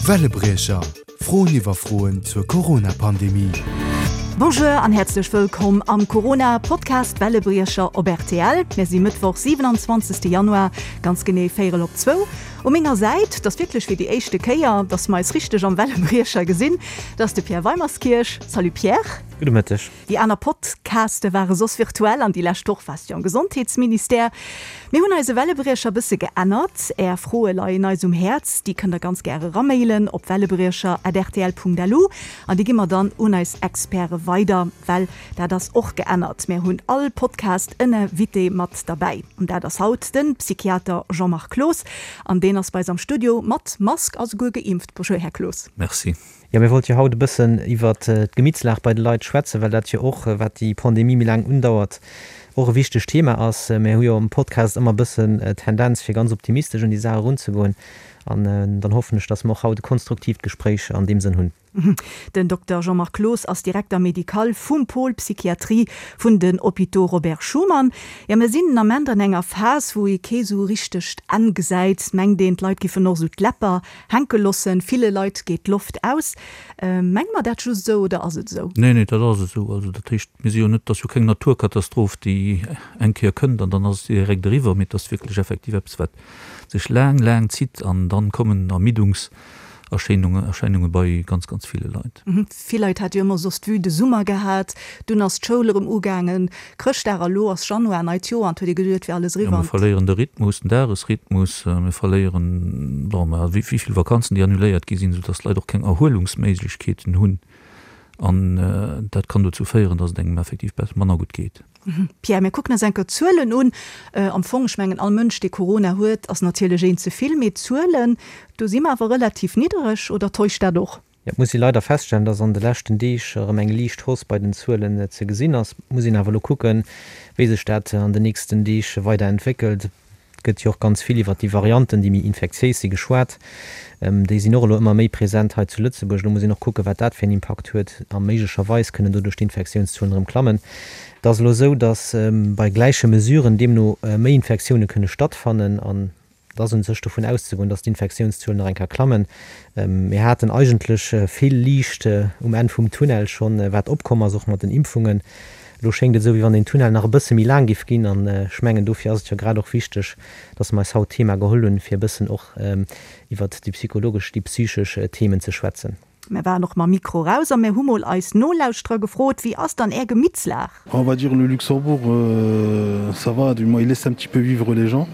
Wellebriecher, Froen iwwer Froen zur Corona-Pandemie. Bonjour an häerzlech wëllkomm am Corona Podcast Wellebriecher op rtl. Mir si Mëttwoch 27 Januar, ganz genee véierel op zwou. U menger Säit, 't ass wierklech fir déi éischte Kéier, dass mer eis richteg am Wellebriecher gesinn, 't ass de Pierre Weimerskirch. Salut Pierre. Gudde Mëtteg. Déi aner Podcaste ware soss virtuell an déi lescht Woch waars du am Gesondheetsministère. Mir hunn eise Wellebriecher bësse geännert. Är Froe leien eis um Häerz. Déi kënnt der ganz gär eramailen op wellebriecher@rtl.lu an déi gi mer dann un eis Experte weider, well dat ass och geännert, mär hunn all Podcast en Invité mat derbäi an dat ass haut de Psychiater Jean-Marc Cloos an deen ass bei eis am Studio mat Mask a souguer geimpft. Bonjour Här Cloos. Merci. Jo, mir wollte jo haut e bëssen iwwert d'Gemittslag bei de Leit schwätzen, well dat jo och, wat déi Pandemie méi laang undauert, och e wichtegt Thema ass. Mir hu jo am Podcast ëmmer e bëssen d'Tendenz, fir ganz optimistesch un déi Saach erunzegoen. An dann hoffen ech, dass mer och haut e konstruktiivt Gespréich an deem Sënn hunn. Den Dokter Jean-Marc Cloos ass Directeur médical vum Pôle Psychiatrie vun den Hôpitaux Robert Schuman. Jo, mir sinn den Ament an enger Phas, wou ee kee sou richtegt Enn gesäit. Mengt een, d'Leit giffen och sou d'Läpper Hänke lossen, ville Leit geet d'Loft aus. Menge mer dat just esou oder ass et esou? Nee, nee, dat ass esou. Also dat heescht, mir si jo net, et ass jo keng Naturkatastroph, déi eng Kéier kënnt an dann ass et direkt eriwwer, mee et ass wierklech effektiv eppes, wat sech laang, laang zitt an dann kommen Ermiddungserscheinungen, Erscheinunge bei ganz, ganz ville Leit. Vill Leit hate jo ëmmer soss d'Vue de Summer gehat, dunn ass d'Schoul erëm ugaangen, Chrëschtdag a lo ass Januar, neit Joer an et huet ee geduet, et wier alles eriwwer. Jo, mir verléieren de Rhythmus, den Dagesrhythmus, mir verléieren, bon, mä wéi vill Vakanzen, déi annuléiert gi sinn, soudass d'Leit och keng Erhuelungsméiglechkeeten hunn an dat kann dozou féieren, dass et engem effektiv manner gutt geet. Pierre, mir kucken eis eng Kéier d'Zuelen un. Am Fong, ech mengen, all Mënsch, dee Corona huet, ass natierlech een ze vill, mee d'Zuelen, do si mer awer relativ niddereg, oder täuscht dat och? Et muss ee leider feststellen, dass an de leschten Deeg erëm eng liicht Hausse bei den Zuelen ze gesinn ass. Et muss een awer elo kucken, wéi sech dat an den nächsten Deeg weider entwéckelt. Et gëtt jo och ganz vill iwwert déi Varianten, déi méi infektiéis si geschwat. Déi sinn och elo ëmmer méi present hei zu Lëtzebuerg. Elo muss een och kucken, wat dat fir en Impakt huet. A méiglecherweis kënnen doduerch d'Infektiounszuelen erëm klammen. Et ass elo esou, dass bei gläiche Mesuren deemno méi Infektioune kënne stattfannen. An Et ass un sech dovun auszegoen, dass d'Infektiounszuelen nach eng Kéier klammen. Mir haten eigentlech vill Liicht um Enn vum Tunnel schonn, wat opkomm ass, och mat den Impfungen. Elo schéngt et esou, wéi wann deen Tunnel nach e bësse méi laang géif ginn. An ech mengen, dofir ass et jo grad och wichteg, dass mer eis haut d'Thema geholl hunn, fir e bëssen och iwwert déi psychologesch, déi psychesch Themen ze schwätzen. Mir waren och mam Mikro raus a mir hu mol eis Nolauschterer gefrot, Wéi ass dann Är Gemittslag? On va dire le Luxembourg ça va, du moins il laisse un petit peu vivre les gens.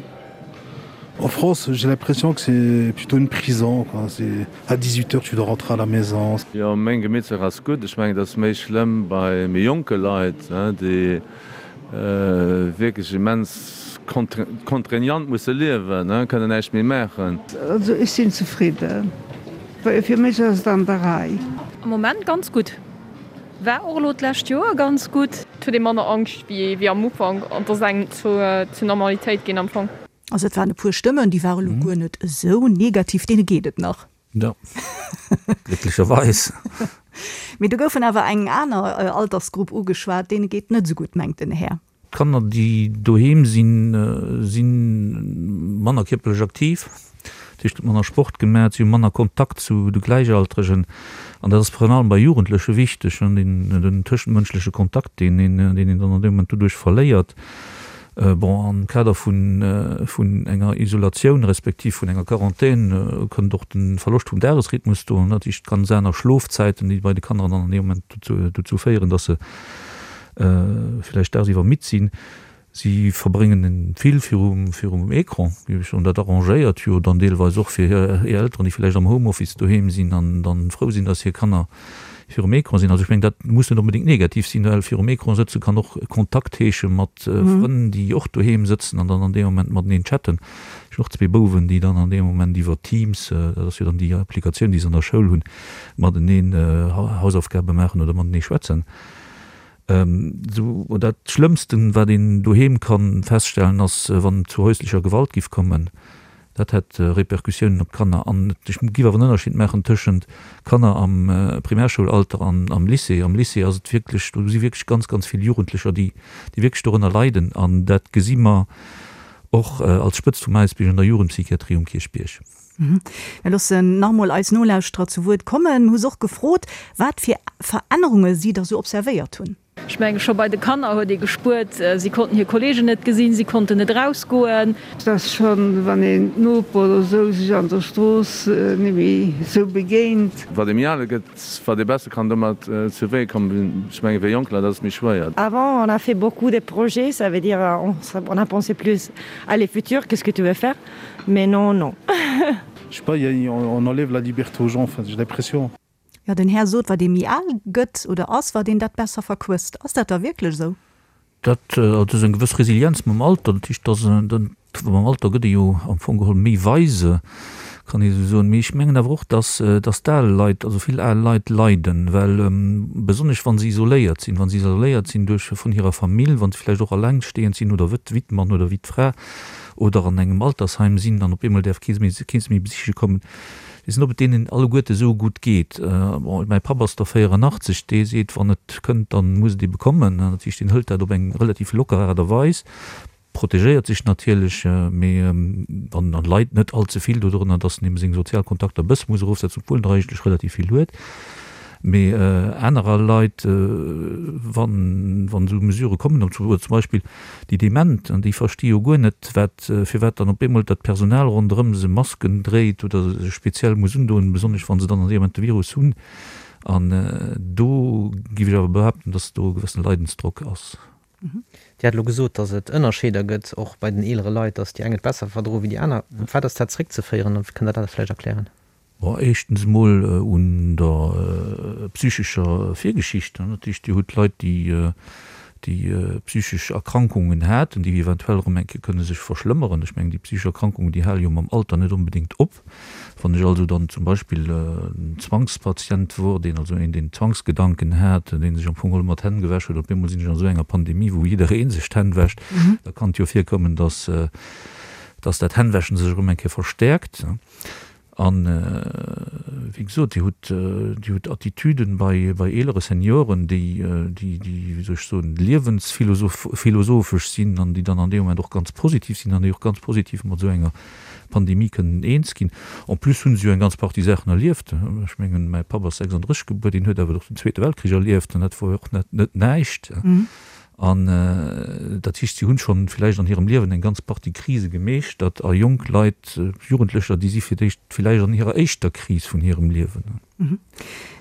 En France, j'ai l'impression que c'est plutôt une prison quoi, c'est à 18 heures tu dois rentrer à la maison. Jo, meng Gemittslag ass gutt. Ech mengen, et ass méi schlëmm bei méi jonke Leit, déi wierklech immens contraignant musse liewen, kënnen näischt méi maachen. Also ech sinn zefridden. Fir mech ass et an der Rei. Am Moment ganz gutt. War och elo d'lescht Joer ganz gutt. Et huet ee manner Angscht wéi am Ufank an et ass eng zur Normalitéit ginn am Fong. Also et waren e puer Stëmmen, déi ware lo guer net esou negativ, deene geet et nach. Jo, glécklecherweis. Mee do goufen awer eng aner Altersgrupp ugeschwat, deene geet net esou gutt, mengt den Här. D'Kanner, déi doheem sinn, si manner kierperlech aktiv, dat heescht, et gëtt manner Sport gemaach, si hu manner Kontakt zu de Gläichaltregen. An dat ass virun allem bei Jugendleche wichteg, den tëschentmënschleche Kontakt, deen een dann an deem Moment doduerch verléiert. Bon, am Kader vun enger Isolatioun respektiv vun enger Quarantän kënnt och de Verloscht vum Dagesrhythmus do, dat heescht ganz aner Schlofzäiten, déi bei de Kanner dann an deem Moment dozou féieren, dass se villäicht dagsiwwer midd sinn. Si verbréngen vill virum virum Ecran, géif ech soen. Dat arrangéiert jo dann deelweis och fir hir Elteren, déi villäicht am Homeoffice doheem sinn an dann frou sinn, dass hir Kanner virum Ecran sinn. Also ech mengen, dat muss net onbedéngt negativ sinn, well virum Ecran sëtze kann och Kontakt heesche mat Frënn, déi och doheem sëtzen an dann an deem Moment mateneen chatten. Ech hunn och zwee Bouwen, déi dann an deem Moment iwwer Teams, dat ass jo dann déi Applikatioun, déi se an der Schoul hunn, mateneen Hausaufgabe maachen oder matenee schwätzen. Sou, dat Schlëmmsten, wat een doheem ka feststellen, ass, wann et zu häuslecher Gewalt giff kommen. Dat hätt Repercussiounen op d'Kanner. An ech giff awer en Ënnerscheed maachen tëschent Kanner am Primärsschoulalter an am Lycée. Am Lycée ass et wierklech, do si wierklech ganz, ganz vill Jugendlecher, déi, déi wierklech dorënner leiden. An dat gesi mer och als Spëtzt vum Äisbierg an der Jugendpsychiatrie um Kierchbierg. Mir loossen nach emol eis Nolauschterer zu Wuert kommen. Mir hu se och gefrot, wat fir Verännerunge si da sou observéiert hunn. Ech menge scho bei de Kanner huet ee gespuert, si konnten hir Kolleegen net gesinn, si konnten net erausgoen. Et ass schonn, wann een d'Noper oder esou sech an der Strooss net méi esou begéint. Wat ee méi al gëtt, wat ee besser kann domat zu Wee kommen. Ech menge fir jonk Leit ass et méi schwéier. Avant on a fait beaucoup de projets, ça veut dire on a pensé plus à le futur, qu'est-ce que tu veux faire, mais non non. Je sais pas, on enlève la liberté aux gens, enfin j'ai l'impression. Jo, den Här sot, wat ee méi al gëtt oder ass, wat een dat besser verquësst. Ass dat da wierklech esou? Dat, also ass eng gewëss Resilienz mam Alter. Dat heescht, dass mam Alter gëtt ee jo am Fong geholl méi weise, kann ee esou soen. Mee ech mengen awer och, dass, dass d'al Leit, also vill al Leit leiden, well besonnesch wa se isoléiert sinn, wa se isoléiert sinn duerch vun hirer Famill, wa se vläicht och allengstehend sinn oder wéi d'Mann oder wéi d'Fra oder an engem Altersheim sinn an op eemol däerf kee se méi besiche kommen. Weess net, ob et deenen alleguerte esou gutt geet. Bon, mäi Papp ass der 84, dee seet, wann et kënnt, da muss et ebe kommen. Dat heescht, deen hëlt dat op eng relativ locker Aart a Weis, protegéiert sech natierlech, mee an leit net all ze vill dodrënner, datt en ebe seng sozial Kontakter e bësse muss erofsetzen, obwuel en der eigentlech relativ vill huet. Mee anerer Leit, wann esou Mesurë kommen, oder zum Beispill déi Dement, déi versti jo guer net, wat, firwat dann op eemol dat Personal ronderëm se Masken dréit oder sech speziell muss undoen, besonnesch wa se dann an deem Moment de Virus hunn. An do géif ech awer behaapten, dass do e gewëssene Leidensdrock ass. Dir hat elo gesot, dass et Ënnerscheeder gëtt, och bei den eelere Leit, dass déi eng et besser verdroe wéi déi aner. Op wat ass dat zréckzeféieren? Kënnt Der dat vläicht erklären? Bon, éischtens emol un der psychescher Virgeschicht. Dat heescht, Dir hutt Leit, déi, déi psychesch Erkrankungen haten, déi eventuell erëm eng Kéier kënne sech verschlëmmeren. Ech mengen, déi psychesch Erkrankungen, déi hale jo mam Alter net onbedéngt op. Wann ech also dann zum Beispill en Zwangspatient wor, deen also een, deen Zwangsgedanken hat, dee sech am Fong geholl ëmmer d'Hänn gewäsch huet, op eemol sinn ech an esou enger Pandemie, wou jidderee sech d'Hänn wäscht, da kann et jo virkommen, dass, dass dat Hännwäschen sech erëm eng Kéier verstäerkt. An, wéi gesot, Dir hutt, Dir hutt Attitüden bei, bei eelere Senioren, déi, déi, déi, wéi soll ech soen, liewensphilosophesch sinn an déi dann an deem Moment och ganz positiv sinn an déi och ganz positiv mat esou enger Pandemie kënnen eens ginn. En plus hu se jo eng ganz Partie Saachen erlieft. Ech mengen, mäi Papp ass 36 gebuer, deen huet awer och den Zweete Weltkrich erlieft an dat wor jo och net, net näischt. An dat heescht, si hunn schonn villäicht an hirem Liewen eng ganz Partie Krise gemeeschtert. A jonk Leit, Jugendlecher, déi si fir d'éischt villäicht an hirer éischter Kris vun hirem Liewen.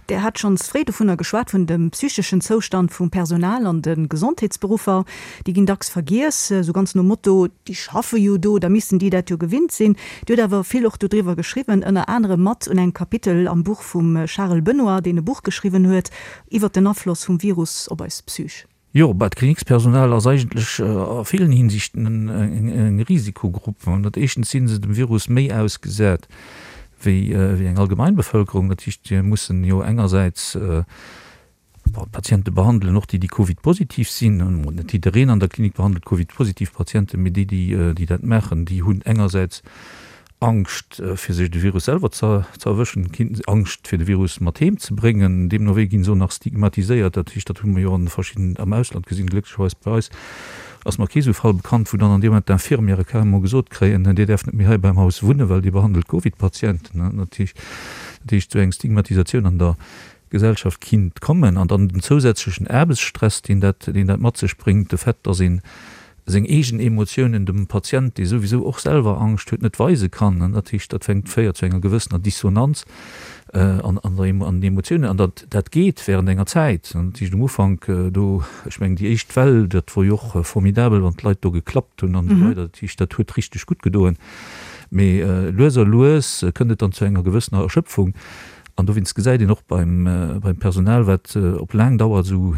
Der hat schonns fréi dovunner geschwat, vun dem psycheschen Zoustand vum Personal an de Gesondheetsberuffer. Déi ginn dacks vergiess, esou ganz nom Motto, déi schaffe jo do, da missten déi dat jo gewinnt sinn. Dir hutt awer vill och dodriwwer geschriwwen, ënner anerem mat un engem Kapitel am Buch vum Charel Benoy, deen e Buch geschriwwen huet iwwer den Afloss vum Virus op eis Psych. Jo, bah, d'Klinikspersonal ass eigentlech a villen Hinsichten eng Risikogrupp. Dat éischtens si se dem Virus méi ausgesat wéi eng allgemein Bevëlkerung. Dat heescht, si mussen jo engersäits d'Patiente behandelen, och déi, déi Covid-positiv sinn. Net jiddereen an der Klinik behandelt Covid-positiv Patienten, mee déi, déi dat maachen, déi hunn engersäits Angscht fir sech de Virus selwer ze erwëschen, Angscht fir de Virus mat heem ze bréngen. Deemno wéi ginn se och nach stigmatiséiert. Dat heescht, dat hu mer jo an verschidden, am Ausland gesinn, glécklecherweis bei eis ass mer kee sou Fall bekannt, wou dann an deem Moment d'Infirmièrë carrément gesot kréien, Dir däerft net méi hei beim Haus wunnen, well Dir behandelt Covid-Patienten. Dat heescht, dat heescht, sou eng Stigmatisatioun an der Gesellschaft kinnt kommen. An dann den zousätzlechen Aarbechtsstress, deen dat, deen dat mat sech bréngt, de Fait, dass een seng eegen Emotiounen dem Patient, dee souwisou och selwer Angscht huet, net weise kann. Dat heescht, dat fänkt, féiert zu enger gewëssener Dissonanz an an der an den Emotiounen. An dat dat geet während enger Zäit. Dat heescht um Ufank do, ech mengen déi éischt Well, dat wor jo och formidabel, wann d'Leit do geklappt hunn an esou weider. Dat heescht, dat huet richteg gutt gedoen. Mee lues a lues kënnt et dann zu enger gewëssener Erschöpfung. An dowéinst gesäit een och beim beim Personal, wat op laang Dauer esou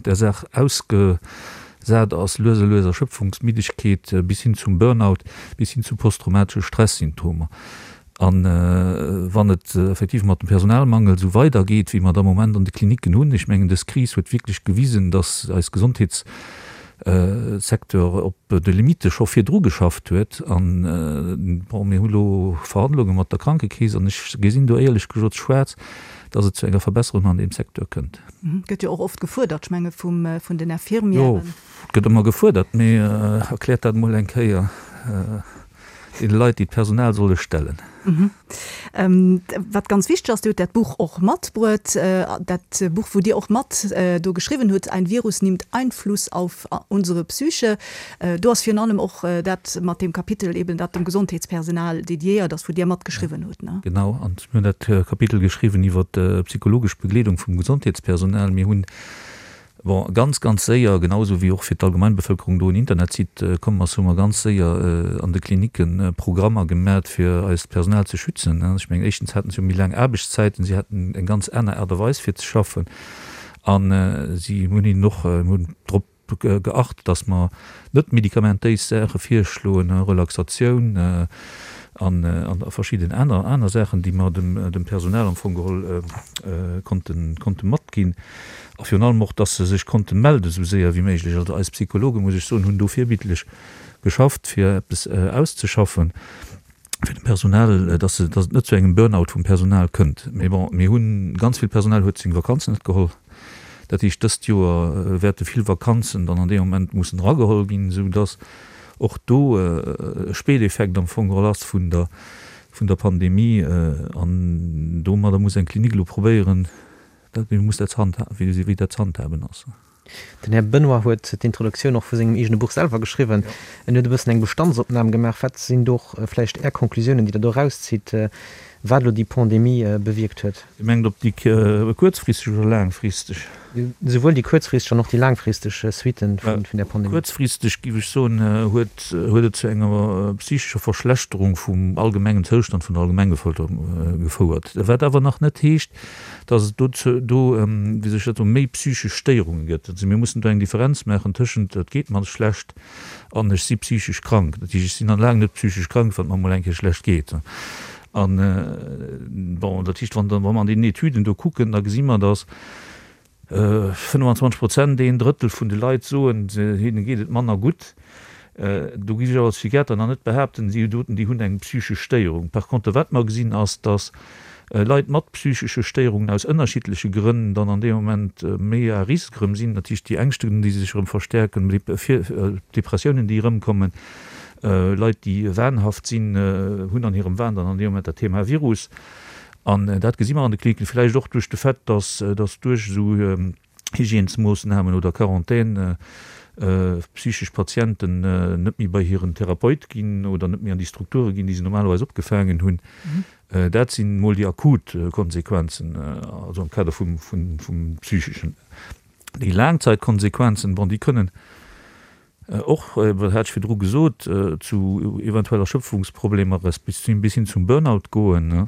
der Saach ausgesat ass, lues a lues Erschöpfungsmiddegkeet bis hin zum Burnout, bis hin zu posttraumatesche Stresssymptomer. A wann et effektiv mat dem Personalmangel esou weidergeet, wéi mer et am Moment an de Klinicken hunn, ech mengen, dës Kris huet wierklech gewisen, dass eis Gesondheetssecteur op de Limitte scho virdru geschafft huet. An, bon, mir hu lo Verhandlunge mat der Krankekeess an ech gesinn do éierlech gesot schwaarz, dass et zu enger Verbesserung an deem Secteur kënnt. Gëtt jo och oft gefuerdert, ech menge vum, vun den Infirmièren. Jo, et gëtt ëmmer gefuerdert, mee erkläert dat emol eng Kéier. deene Leit, déi d'Personal solle stellen. Wat ganz wichteg ass, Dir hutt dat Buch och matbruet, dat Buch, wou Dir och mat do geschriwwen hutt, Ein Virus nimmt Einfluss auf unsere Psyche. Do ass virun allem och dat mat deem Kapitel eben, dat dem Gesondheetspersonal dediéiert ass, wou Dir matgeschriwwen hutt, ne? Genau, an mir hunn dat Kapitel geschriwwen iwwer d'psychologesch Begleedung vum Gesondheetspersonal. Mir hunn Bon, ganz, ganz séier, genau esou wéi och fir d'Allgemeinbevölkerung do en Internetsite komm ass, hu mer ganz séier an de Klinikke Programmer gemat, fir eist Personal ze schützen. Ech mengen, éischtens haten se jo méi laang Aarbechtszäiten, si haten eng ganz aner Aart a Weis fir ze schaffen a si hunn hinnen och, mir hunn drop geacht, dass mer net medikamentéis Saache virschloen, Relaxatioun an verschidden aner aner Saachen, déi mer dem Personal am Fong geholl konnte konnte matginn. A virun allem och, dass se sech konnte melde sou séier wéi méiglech. Also eis Psychologen, muss ech soen, hunn do virbildlech geschafft, fir eppes auszeschaffen fir dem Personal, dass se, dass et net zu engem Burnout vum Personal kënnt. Mee bon, mir hunn, ganz vill Personal huet seng Vakanzen net geholl. Dat heescht, dëst Joer wäerte vill Vakanzen dann an deem Moment mussen erageholl ginn, esou dass och do e Spéiteffekt am Fong geholl ass vun der, vun der Pandemie. An domadder muss eng Klinik elo probéieren, dat, wéi muss dat ze handha, wéi dat ze handhaben ass. Den Här Benoy huet d'Introduktioun och vu sengem eegene Buch selwer geschriwwen. En huet e bëssen eng Bestandsopnam gemaach. Wat sinn do och vläicht Är Conclusiounen, déi Der do erauszitt, wat elo déi Pandemie bewierkt huet? Dir mengt op déi kuerzfristeg oder laangfristeg? Souwuel déi kuerzfristeg an och déi laangfristeg Suitten vun där Pandemie. Kuerzfristeg, géif ech soen, huet huet et zu enger psychescher Verschlechterung vum allgemengen Zoustand vun der Allgemengbevölkerung gefouert. Wat awer nach net heescht, dass et do, do, wéi soll ech dat soen, méi psychesch Stéierunge gëtt. Also mir mussen do eng Differenz maachen tëschent et geet mer schlecht an ech si psychesch krank. Dat heescht, ech sinn nach laang net psychesch krank, wann et mer emol eng Kéier schlecht geet. An, bon, dat heescht, wann, wa mer an deenen Etüden do kucken, da gesi mer, dass 25 Prozent, een Drëttel vun de Leit soen, hinne geet et manner gutt. Do géif ech awer als Psychiater nach net behaapten, déi doten, déi hunn eng psychesch Stéierung. Par contre, wat mer gesinn, ass, datt Leit mat psychesche Stéierungen aus ënnerschiddleche Grënn dann an deem Moment méi à risque erëm sinn. Dat heescht, déi Ängschten, déi sech erëm verstäerken, Depressiounen, déi erëmkommen, Leit, déi wahnhaft sinn, hunn an hirem Wahn dann an deem Moment dat Thema Virus. An dat gesi mer an de Kliniken, vläicht och duerch de Fait, dass duerch esou Hygiènesmoossnamen oder Quarantaine psychesch Patienten net méi bei hiren Therapeut ginn oder net méi an déi Strukture ginn, déi se normalerweis opgefaangen hunn. Dat sinn emol déi akut Konsequenzen, also am Kader vum Psycheschen. Déi Laangzeitkonsequenzen, bon, déi kënnen Och, dat hat ech virdru gesot, zu eventuell Erschöpfungsproblemer resp. Bis hin zum Burnout goen,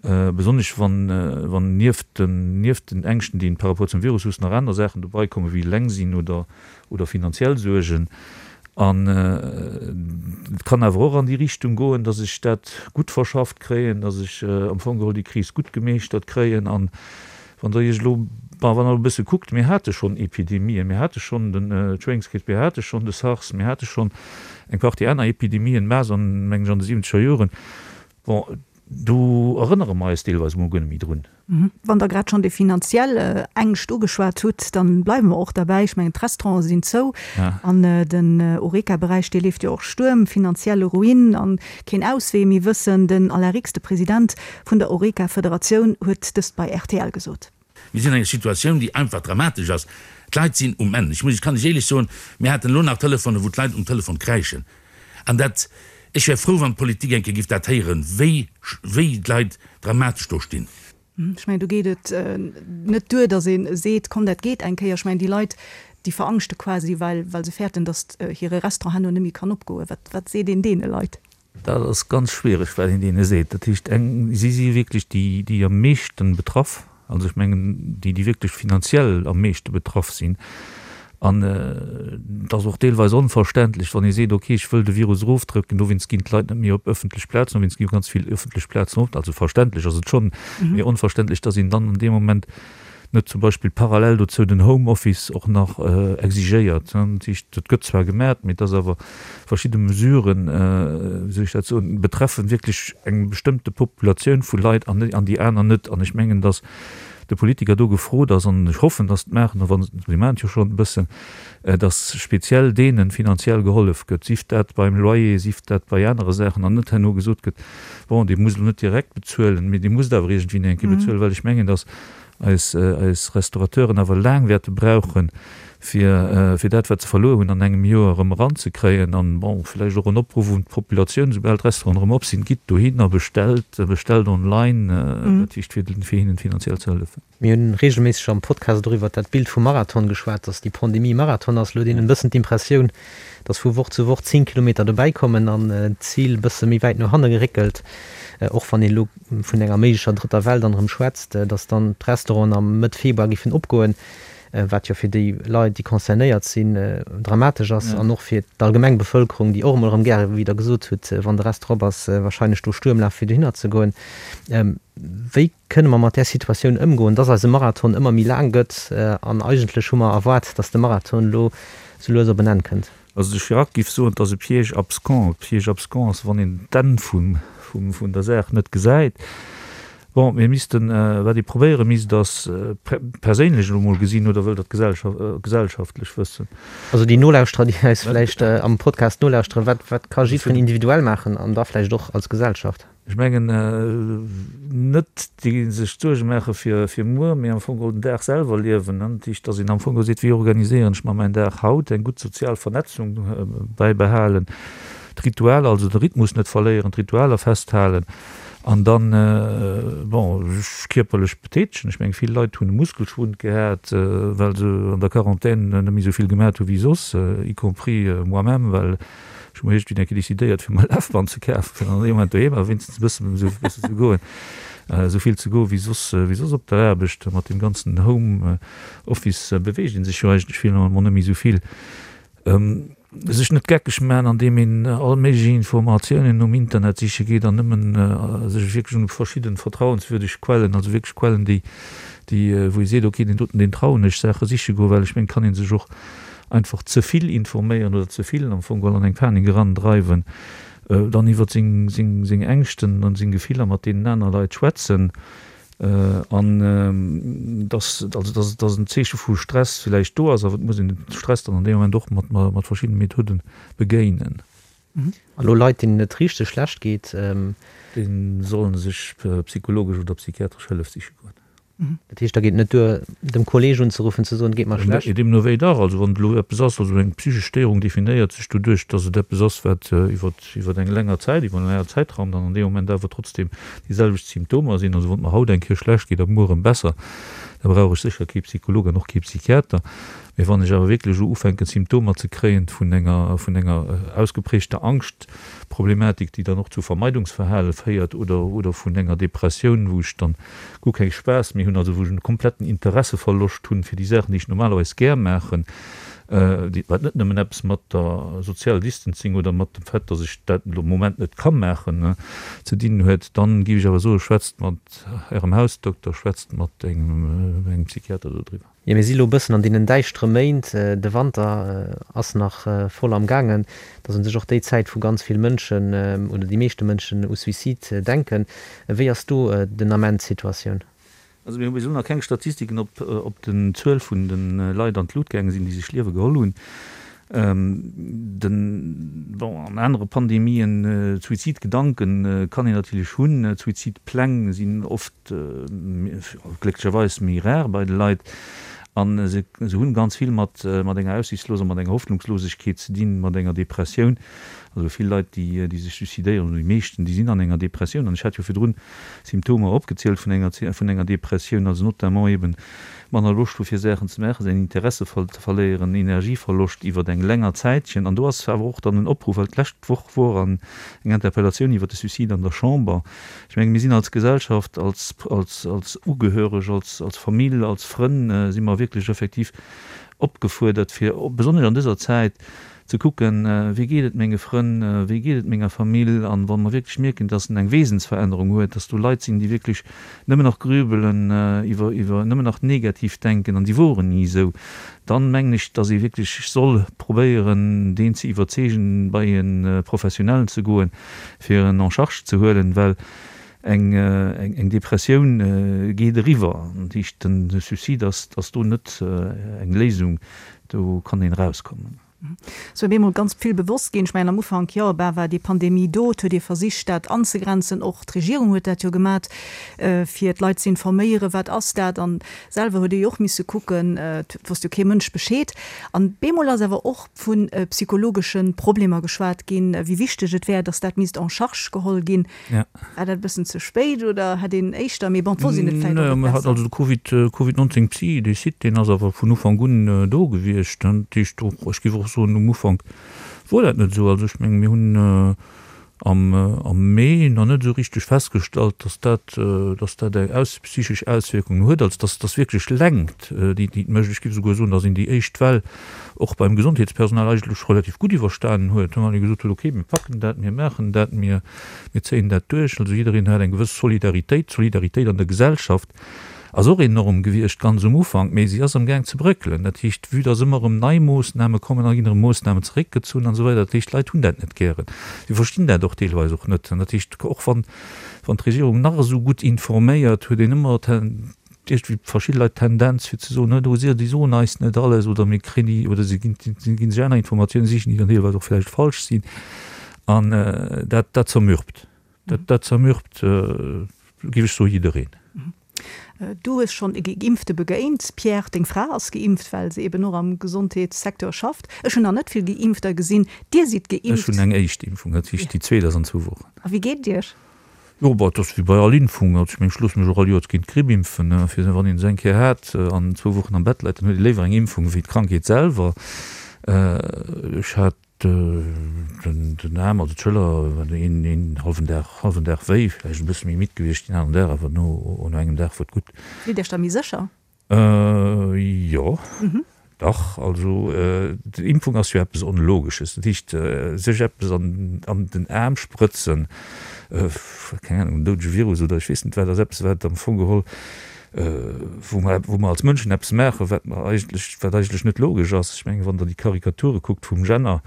besonnesch wann nieft den nieft den Ängschten, déi een par rapport zum Virus hues, nach aner Saachen dobei kommen, wéi eleng sinn oder oder finanziell Suergen. An et kann awer och an déi Richtung goen, datt ech dat gutt verschafft kréien, datt ech am Fong geholl déi Kris gutt gemeeschtert kréien an Wann Der Iech elo, bon, wann Der elo e bësse kuckt, mir hate schonn Epidemien, mir hate schonn den Schwéngskriibs, mir hate schonn de SARS, mir hate schonn eng Partie aner Epidemien, Masern, mengen ech, an de siwwenzeger Joren. Bon, do erënnere mer eis deelweis emol guer net méi drun. Wann Der grad schonn déi finanziell Ängscht ugeschwat hutt, da bleiwe mer och derbäi. Ech mengen, d'Restaurante sinn zou an den Horeca-Beräich, dee leeft jo och Stuerm, finanzielle Ruin an keen Auswee méi wëssen. Den Alain Rix, de President vun der Horeca-Federatioun huet dëst bei rtl gesot. Mir sinn an enger Situatioun, déi einfach dramatesch ass. D'Leit sinn um Enn. Ech muss, ech kann lech éierlech soen, mir haten elo nach Telefonen, wou d'Leit um Telefon kräischen. An dat, ech wär frou, wann d'Politik eng Kéier giff dat héieren, wéi, wéi d'Leit dramatesch do stinn. Ech mengen, do geet et net duer, datt ee seet, komm dat geet eng Kéier. Ech mengen, déi Leit, déi verangschte quasi, well, well se fäerten, datt hire Restaurant herno net méi kann opgoen. Wat, wat seet een deene Leit? Dat ass ganz schwiereg, wat een deene seet. Dat heescht, eng, si si wierklech déi, déi am meeschten betraff, also ech mengen déi, déi wierklech finanziell am meeschte betraff sinn. An et ass och deelweis onverständlech, wann ee seet, okay, ech wëll de Virus erofdrëcken, dowéinst ginn d'Leit net méi op ëffentlech Plazen, dowéinst gi ganz vill ëffentlech Plazen op. Also verständlech ass et schonn, mee onverständlech, dass een dann an deem Moment net zum Beispill parallel dozou den Homeoffice och nach exigéiert. Dat heescht, dat gëtt zwar gemat, mee et ass awer verschidde Mesuren, wéi soll ech dat soen, betreffen wierklech eng bestëmmte Populatioun vu Leit an déi aner net. An ech mengen, datt. De Politiker do gefrot ass, an ech hoffen, dass se et maachen, a wa se, si maachen et jo schonn e bëssen, dass speziell deene finanziell gehollef gëtt, sief dat beim Loyer, sief dat bei anere Saachen, an net herno gesot gëtt, bon, Dir musst elo net direkt bezuelen, mee Dir musst awer iergendwéi eng Kéier bezuelen, well ech mengen, dass eis, eis Restaurateuren awer laang wäerte brauchen, fir, fir dat, wat se verluer hunn, an engem Joer erëm eranzekréien. An, bon, vläicht och en Opruff un d'Populatioun, soubal d'Restauranten erëm op sinn, gitt dohin a bestellt, bestellt online, dat heescht, fir, fir hinnen finanziell ze hëllefen. Mir hunn reegelméisseg am Podcast och iwwert dat Bild vum Marathon geschwat, dass déi Pandemie e Marathon ass. Elo huet een en bëssen d'Impressioun, dass vu Woch zu Woch 10 Kilometer dobäi kommen an d'Zil e bësse méi wäit no hanne geréckelt. Och wann een elo vun enger méiglecher drëtter Well dann erëm schwätzt, dass dann d'Restauranten am Mëtt Februar géifen opgoen, wat jo fir déi Leit, déi concernéiert sinn, dramatesch ass an och fir d'allgemeng Bevëlkerung, déi och emol erëm gäre, wéi Der gesot hutt, wann de Restaurant op ass, wahrscheinlech do Stuerm laf fir dohinner ze goen. Wéi kënne mer mat där Situatioun ëmgoen, dass eise Marathon ëmmer méi laang gëtt an eigentlech hu mer erwaart, dass de Marathon elo sou lues op en Enn kënnt? Also de Chirac giff soen, 't ass e Piège abscons. E Piège abscons ass, wann een d'Enn vum, vum, vun der Saach net gesäit. Bon, mir missten, wat ee probéiere misst, ass perséinlech elo mol gesinn, oder wëllt Der d'Gesellschaft, gesellschaftlech wëssen? Also déi Nolauschterer, déi eis vläicht am Podcast nolauschteren, wat, wat ka jiddwereen individuell maachen an da vläicht och als Gesellschaft? Ech mengen net déi sech Suerge maache fir fir muer, mee am Fong geholl den Dag selwer liewen. Dat heescht, datt een am Fong geholl seet, wéi organiséieren ech mer mäin Dag haut, eng gutt sozial Vernetzung bäibehalen, d'Ritualer, also de Rhythmus net verléieren, d'Ritualer festhalen an dann, bon, sech kierperlech betätegen. Ech mengen, vill Leit hunn e Muskelschwund gehat, well se an der Quarantän net méi esou vill gemat hu wéi soss, y compris moi-même, well Ech hu mer iergendwéi eng Kéier decidéiert, fir mer e Lafband ze kafen, fir an deem Moment doheem awer wéinstens e bëssen esou e bëssen ze goen, esou vill ze goen, wéi soss, wéi soss op der Aarbecht. Mat deem ganzen Home Office beweegt ee sech jo eigentlech finalement net méi esou vill. Sech net geckeg maachen, andeem een all méiglech Informatiounen um Internet siche geet an nëmmen sech wierklech un verschidden vertrauenswürdeg Quellen, also wierklech Quellen, déi, déi, wou ee seet, okay, deen doten, deen trauen ech, Saache siche goen, well ech mengen, et kann ee sech och einfach ze vill informéieren oder ze vill am Fong geholl an eng Panik eran dreiwen, dann iwwert seng seng seng Ängschten an seng Gefiller mat deenen aner Leit schwätzen an dass also dass dass en Zeeche vu Stress villäicht do ass, awer et muss een den Stress dann an deem Moment och mat mat verschiddene Methoden begéinen. A lo Leit deenen et richteg schlecht geet. Déi sollen sech psychologesch oder psychiatresch Hëllef siche goen. Dat heescht, da geet et net duer, dem Kolleeg unzeruffen, ze soen, et geet mer schlecht? Deemno wéi dach. Also wann et elo eppes ass, also eng psychesch Stéierung definéiert sech doduerch, datt et eppes ass, wat iwwer, iwwer eng länger Zäit, iwwer en längere Zäitraum dann an deem Moment awer trotzdem déi selwecht Symptomer sinn. Also wann et mer haut eng Kéier schlecht geet a muer erëm besser, da brauch ech sécher kee Psycholog an och kee Psychiater. Mee wann ech awer wierklech elo ufänken Symptomer ze kréien vun enger, vun enger ausgeprägter Angschtproblematik, déi dann och zu Vermeidungsverhale féiert oder, oder vun enger Depressioun, wou ech dann guer keng Spaass méi hunn, also wou ech en kompletten Interesseverloscht hunn fir déi Saachen, déi ech normalerweis gär maachen, déi, wat net nëmmen eppes mat der Sozial Distancing oder mat dem Fait, dass ech dat elo am Moment net ka maachen, ze dinn huet, dann géif ech awer soen, schwätzt mat Ärem Hausdokter, schwätzt mat engem Psychiater dodriwwer. Jo, mir si lo e bëssen an deenen däischtere Méint, de Wanter ass nach voll am gaangen, et ass un sech och déi Zäit, wou ganz vill Mënschen oder déi meeschte Mënschen u Suicide denken. Wéi ass do den Ament d'Situatioun? Also mir hu bis elo nach keng Statistiken, ob ob den Zuel vun de Leit an d'Lut gaange sinn, déi sech d'Liewe geholl hunn. Den, bon, an anere Pandemien, Suizidgedanken kann een natierlech hunn, Suizidpläng sinn oft, glécklecherweis méi rar bei de Leit an se hunn ganz vill mat mat enger Aussichtsloser, mat enger Hoffnungslosegkeet ze dinn, mat enger Depressioun. Also vill Leit déi déi sech suicidéieren, oder déi meeschten, déi sinn an enger Depressioun an ech hat jo virdrun Symptomer opgezielt vun enger vun enger Depressioun, also notamment eben manner Loscht hu fir Saachen ze maachen, säin Interesse ze verléieren, Energieverloscht iwwert eng länger Zäitchen an do ass awer och dann en Opruff, well d'lescht Woch wor an eng Interpellatioun iwwert de Suicide an der Chamber, Ech menge mir sinn als Gesellschaft, als, als, als Ugehöreg, als, als Famill, als Frënn si mer wierklech effektiv opgefuerdert, fir besonnesch an dëser Zäit ze kucken, wéi geet et menge Frënn, wéi geet et menger Famill. An wa mer wierklech mierken, dass en eng Wesensverännerung huet, dass do Leit sinn, déi wierklech nëmmen nach grübelen, iwwer, iwwer nëmmen nach negativ denken an déi woren ni esou, dann mengen ech, dass ee wierklech soll probéieren, deen ze iwwerzeegen, bei e Professionellen ze goen, fir en en charge ze huelen, well. Eng, eng Depressioun geet eriwwer. Dat heescht, de Suicide ass, ass do net eng Léisung, do kann een erauskommen. Et ass bemol ganz vill bewosst ginn. Ech mengen am Ufank, jo, bah, war déi Pandemie do, et huet ee versicht dat anzegrenzen, och d'Regierung huet dat jo gemat, fir d'Leit ze informéieren, wat ass dat, an selwer huet ee jo och misse kucken, et wosst jo kee Mënsch Bescheed. An bemol ass awer och vu psychologesche Problemer geschwat ginn, wéi wichteg et wär, datt dat misst en charge geholl ginn. Ja. War dat e bëssen ze spéit oder hätt een éischter, mee bon, et wosst een et vläicht och net besser. Also de Covid, Covid 19 Psy, dee Site, deen ass awer vun Ufank un do gewiescht. Dat heescht och, ech géif och soen, um Ufank wor dat net esou. Also ech menge mir hunn am am Mee nach net esou richteg festgestallt, datt dat, datt dat eng aus psychesch Auswierkungen huet, also datt datt wierklech Längt déi déi et mécht. Ech géif esouguer soen, datt een déi éischt Well och beim Gesondheetspersonal eigentlech relativ gutt iwwerstanen huet, wann ee gesot huet, okay, mir packen dat, mir maachen dat, mir, mir zéien dat duerch. Also jiddereen hat eng gewëss Solidaritéit. D'Solidaritéit an der Gesellschaft ass och enorm gewiescht ganz um Ufank, mee si ass amgaang ze bréckelen. Dat heescht, vue dass ëmmer erëm nei Moossname kommen, da ginn erëm Moossnamen zeréckgezunn an esou weider. Dat heescht, d'Leit hunn dat net gären. Si verstinn dat och deelweis och net. An dat heescht, och wann, wann d'Regierung nach esou gutt informéiert, huet een ëmmer iergendwéi verschidde Leit d'Tendenz fir ze soen, oh si, déi soen eis net alles oder mir kréien déi oder si ginn, si ginn sech aner Informatiounen sichen, déi dann deelweis och vläicht falsch sinn. An dat, dat zermürbt. Dat, dat zermürbt, géif ech soen, jiddereen. Du hues schonn e Geimpfte begéint, Pierre. Deng Fra ass geimpft, well se eben och am Gesondheetssecteur schafft. Ech hunn nach net vill Geimpfter gesinn. Dir sidd geimpft. Ech hunn eng éischt Impfung, dat heescht déi zweet ass an zwou Wochen. A wéi geet et Iech? Jo, bah, et ass wéi bei all Impfung. Also ech mengen, ech loosse mech och all Joers géint d'Gripp impfen. Fir wann een se eng Kéier hat an zwou Wochen am Bett läit, dann huet ee léiwer eng Impfung wéi d'Krankheet selwer. Ech hat den Aarm, also d'Schëller, een, een hallwen Dag, hallwen Dag wéi, vläicht e bësse méi midd gewiescht deen aneren Dag, awer no, no engem Dag wor et gutt. Fillt Iech da méi sécher? Jo, dach. Also d'Impfung ass jo eppes Onlogesches. Dat heescht, sech eppes an den Aarm sprëtzen, keng Ahnung, en doudege Virus oder ech weess net wat, ass eppes, wat am Fong geholl, wou mer, wou mer als Mënschen eppes maachen, wat mer eigentlech, wat eigentlech net logesch ass. Ech mengen, wann Der déi Karikature kuckt vum Jenner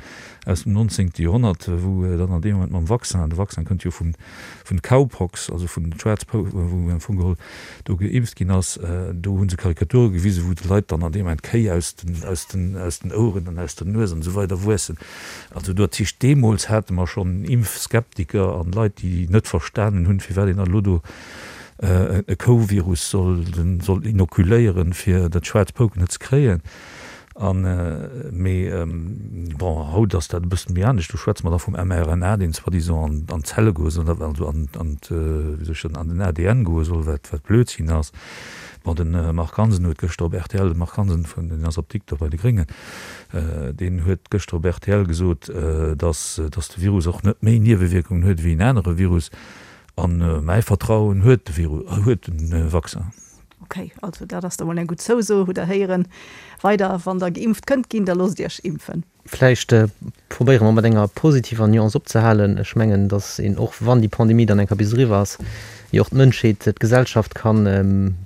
aus dem nonzéngte Joerhonnert, wou dann an deem Moment mam Vaccin, de Vaccin kënnt jo vun, vun Cowpox, also vun Schwaarzpou, wou am Fong geholl do geimpft ginn ass, do hu se Karikature gewisen, wou de Leit dann an deem Moment d'Kéi aus den, aus den, aus den Oueren an aus der Nues an esou weider wuessen. Also do, dat heescht, deemools hate mer schonn Impfskeptiker an Leit, déi net verstanen hunn, firwat een dann elo do e Kouvirus soll, soll inokuléieren, fir dat schwaarz Pouken net ze kréien. An, mee bon, haut ass dat e bëssen méi anescht, do schwätze mer da vum mRNA, deen soi-disant an d'Zelle goe soll, also an, an, wéi soll ech soen, an den ADN goe soll, wat, wat Blödsinn ass. Bon, de Marc Hansen huet gëschter op rtl, de Marc Hansen vun, deen ass Apdikter bei de Gréngen, deen huet gëschter op rtl gesot, datt, datt de Virus och net méi Niewewierkungen huet wéi en anere Virus. An mäi Vertrauen huet de Virus, huet de Vaccin. Ok, also dat ass da mol eng gutt Zouso, hutt der héieren. Weider, wann der geimpft kënnt ginn, da loosst iech impfen. Vläicht probéiere mer mat enger positiver Nuance opzehalen. Ech mengen, datt een och wann déi Pandemie dann eng Kéier bis eriwwer ass, jo och d'Mënschheet, d'Gesellschaft kann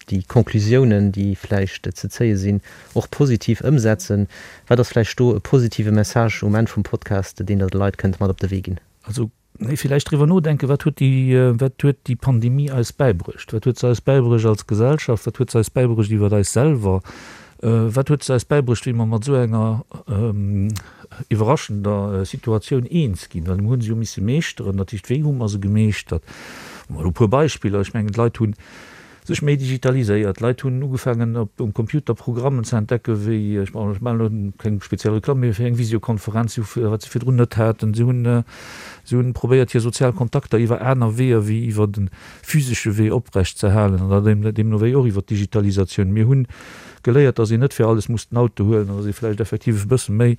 déi Conclusiounen, déi vläicht ze zéie sinn, och positiv ëmsetzen. Wat ass vläicht do e positive Message um Enn vum Podcast, deen Der de Leit kënnt mat op de Wee ginn? Also Nee, villäicht driwwer nodenken, wat huet déi, wat huet déi Pandemie eis bäibruecht? Wat huet se eis bäibruecht als Gesellschaft? Wat huet se eis bäibruecht iwwer eis selwer? Wat huet se eis bäibruecht, wéi mer mat esou enger iwwerraschender Situatioun eens ginn? Well mir hu se jo misse meeschteren. Dat heescht, wéi hu mer se gemeeschtert? Mol e puer Beispiller, Ech mengen, d'Leit hunn sech méi digitaliséiert. D'Leit hunn ugefaangen op um Computer Programmen ze entdecken, wéi, ech maachen elo keng speziell Reklamm, mee fir eng Visiokonferenz, wat se virdrun net haten. Si hunn, si hunn probéiert hir sozial Kontakter iwwer aner Weeër wéi iwwer de physesche Wee oprecht ze halen an dat deemno wéi och iwwer d'Digitalisatioun. Mir hunn geléiert, datt een net fir alles muss den Auto huelen an datt ee vläicht effektiv e bësse méi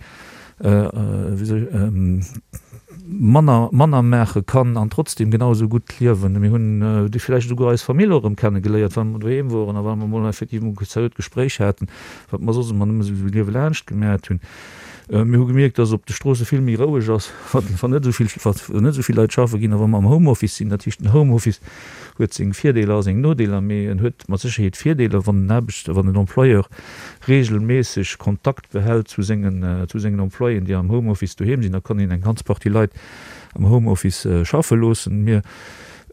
manner manner maache kann an trotzdem genau esou gutt liewen. Mir hunn déi vläicht esouguer eis Famill och erëm kenne geléiert, well mer doheem woren a well mer emol effektiv emol e seriöt Gespréich haten, wat mer soss ëmmer nëmme esou liewe laanscht gemat hunn. Mir hu gemierkt, dass op de Stroosse vill méi roueg ass, wann net esou vill wann net esou vill Leit schaffe ginn a wa mer am Homeoffice sinn. Dat heescht, den Homeoffice huet seng Virdeeler a seng Nodeeler, mee en huet mat Sécherheet Virdeeler, wann den Aarbechter, wann den Employeur reegelméisseg Kontakt behält zu sengen, zu sengen Employéen, déi am Homeoffice doheem sinn, da kann een eng ganz Partie Leit am Homeoffice schaffe loossen. Mir.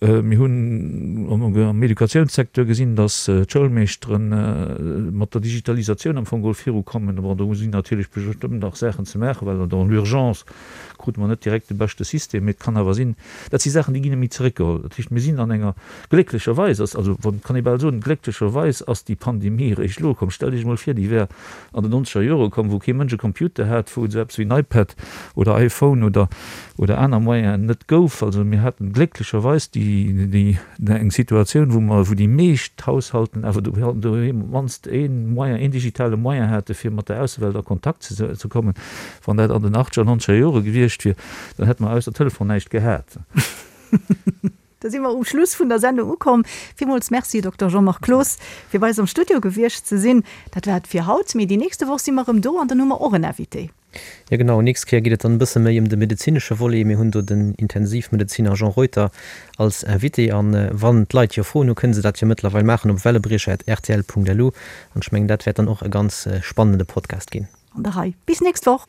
Mir hunn am Educatiounssecteur gesinn, datt d'Schoulmeeschtere mat der Digitalisatioun am Fong geholl virukommen. Bon, do sinn natierlech bestëmmt nach Saachen ze maachen, well dans l'urgence krute mer net direkt de beschte System. Mee et kann awer sinn, dat si Saachen, déi ginn net méi zeréckgeholl. Dat heescht, mir sinn an enger, glécklecherweis ass, also kann ee bal soen, glécklecherweis ass déi Pandemie eréischt elo komm. Stellt Iech emol vir, déi wär an den nonzeger Jore komm, wou kee Mënsch e Computer hat, wou et esou eppes wéi en iPad oder iPhone oder oder aner Moyenen net gouf. Also mir haten glécklecherweis déi déi eng Situatioun, wou mer wou déi meescht Haushalten awer doheem op d'mannst ee Moyen, een digitale Moyen hate fir mat der Aussewelt a Kontakt ze ze kommen. Wann dat an den achtzeger, nonzeger Jore gewiescht wier, dann hätte mer ausser Telefon näischt gehat. Da si mer um Schluss vun der Sendung ukomm. Villmools Merci, Dokter Jean-Marc Cloos, fir bei eis am Studio gewiescht ze sinn. Dat war et fir haut, mee déi nächste Woch si mer erëm do an dann hu mer och en Invité. Jo genau, nächst Kéier geet et dann e bësse méi ëm de medezinesche Volet. Mir hunn do den Intensivmedeziner Jean Reuter als Invité. An wann d'Leit jo Froen hu, kënne se dat jo mëttlerweil maachen op wellebriecher@rtl.lu. An ech mengen, dat wäert dann och e ganz spannende Podcast ginn. An der Rei. Bis nächst Woch!